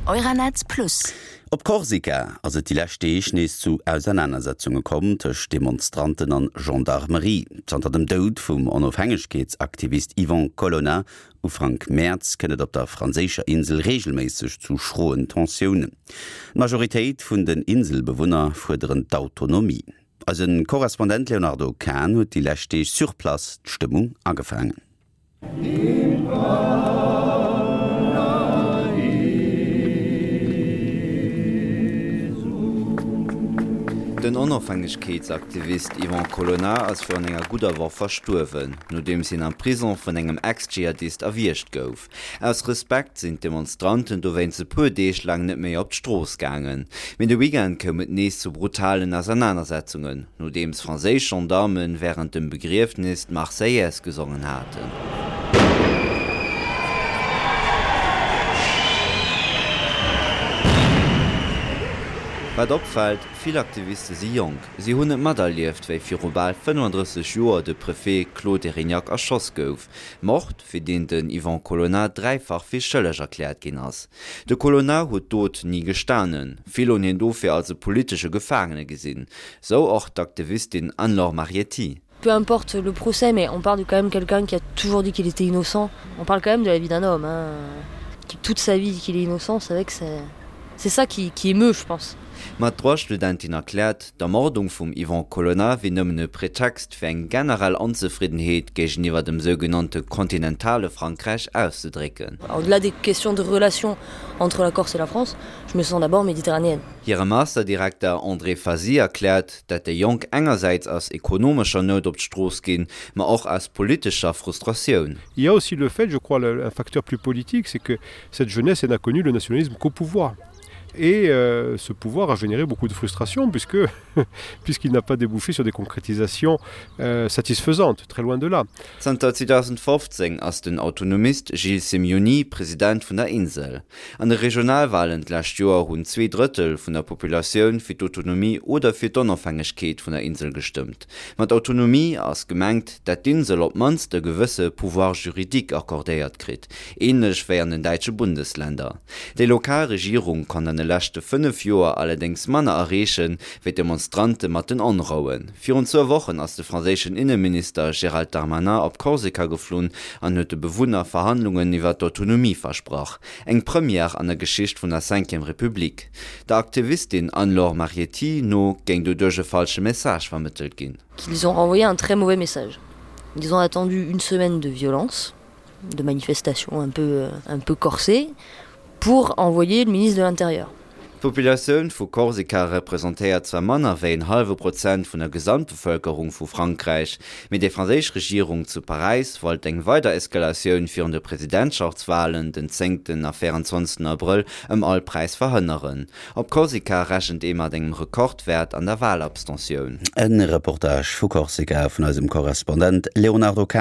Euronetz Plus. Op Korsika ass et déi lescht Deeg nees zu Ausernanersetzunge komm tëscht Demonstranten an Gendarmerie. Zanter dem Doud vum Onofhängegkeetsaktivist Yvan Colonna Ufank Mäerz kënnt et op der franséischer Insel reegelméisseg zu schroen Tensiounen. D'Majoritéit vun den Inselbewunner fuerderen d'Autonomie. Eise Korrespondent Léonardo Kahn huet déi lescht Deeg sur place d'Stëmmung agefaangen. Den Onofhängegkeetsaktivist Yvan Colonna ass virun enger gudder Woch verstuerwen, nodeems hien am Prison vun engem Ex-Dschihadist erwiergt gouf. Aus Respekt sinn d'Demonstranten dowéinst e puer Deeg laang net méi op d'Strooss gaangen. Mee de Weekend koum et nees zu brutalen Ausernanersetzungen, nodeems franséisch Gendarme wärend dem Begriefnis d'Marseillaise gesongen haten. Wat opfält, Vill Aktiviste si jonk. Si hunn et materlieft, wéi viru bal 35 Joer de Préfet Claude Erignac erschoss gouf. Mord, fir deen den Yvan Colonna dräifach fir schëlleg erkläert ginn ass. De Colonna huet d'Dot ni gestanen. Vill hunn hien dofir als e politesche Gefaangene gesinn. Sou och d'Aktivistin Anne-Laure Marietti. Peu importe le procès, mais on parle de quand même quelqu'un qui a toujours dit qu'il était innocent. On parle quand même de la vie d'un homme hein, qui toute sa vie dit qu'il est innocent, c'est vrai que c'est c'est ça qui, qui émeut, je pense. Ma d'Droitstudentin erkläert, d'Ermordung vum Yvan Colonna wier nëmmen e Pretext fir eng generell Onzefriddenheet géigeniwwer dem sougenannte kontinentale Frankräich auszedrécken. Au-delà des questions de relations entre la Corse et la France, je me sens d'abord méditerranéenne. Hire Masterdirekter André Fazi erkläert, dat déi Jonk engersäits aus ekonomescher Nout op d'Strooss ginn, ma och aus politescher Frustratioun. Il y a aussi le fait, je crois, un facteur plus politique, c'est que cette jeunesse elle n'a connu le nationalisme qu'au pouvoir. Et euh, ce pouvoir a généré beaucoup de frustration puisque puisqu'il n'a pas débouché sur des concrétisations euh, satisfaisantes, très loin de là. Zanter 2015 ass den Autonomist Gilles Simeoni President vun der Insel. An de Regionalwalen d'lescht Joer hunn 2 Drëttel vun der Populatioun fir d'Autonomie oder fir d'Onofhängegkeet vun der Insel gestëmmt. Mat Autonomie ass gemengt, dat d'Insel op d'mannst e gewësse Pouvoir juridique accordéiert kritt, änlech wéi an den däitsche Bundesländer. Déi lokal Regierung konnt an de leschte 5 Joer allerdéngs manner erreechen, wéi d'Demonstrante mat den Onrouen. Virun zwou Wochen ass de franséischen Inneminister Gérald Darmanin op Korsika geflunn an huet de Bewunner Verhandlungen iwwer d'Autonomie versprach. Eng Première an der Geschicht vun der Cinquième République. Der Aktivistin Anne-Laure Marietti no géing doduerch e falsche Message vermëttelt ginn. Qu'ils ont renvoyé un très mauvais message. Ils ont attendu une semaine de violence, de manifestations un peu, un peu corsées, pour envoyer le ministre de l'Intérieur. D'Populatioun vu Korsika representéiert zwar manner wéi en hallwe Prozent vun der Gesamtbevëlkerung vu Frankräich, mee déi franséisch Regierung zu Paräis wollt eng weider Eskalatioun virun de Presidentschaftswalen den zéngten a 24 Abrëll ëm all Präis verhënneren. Op Korsika rechent ee mat engem Rekordwäert an der Walabstentioun. E Reportage vu Korsika vun eisem Korrespondent Léonardo Kahn.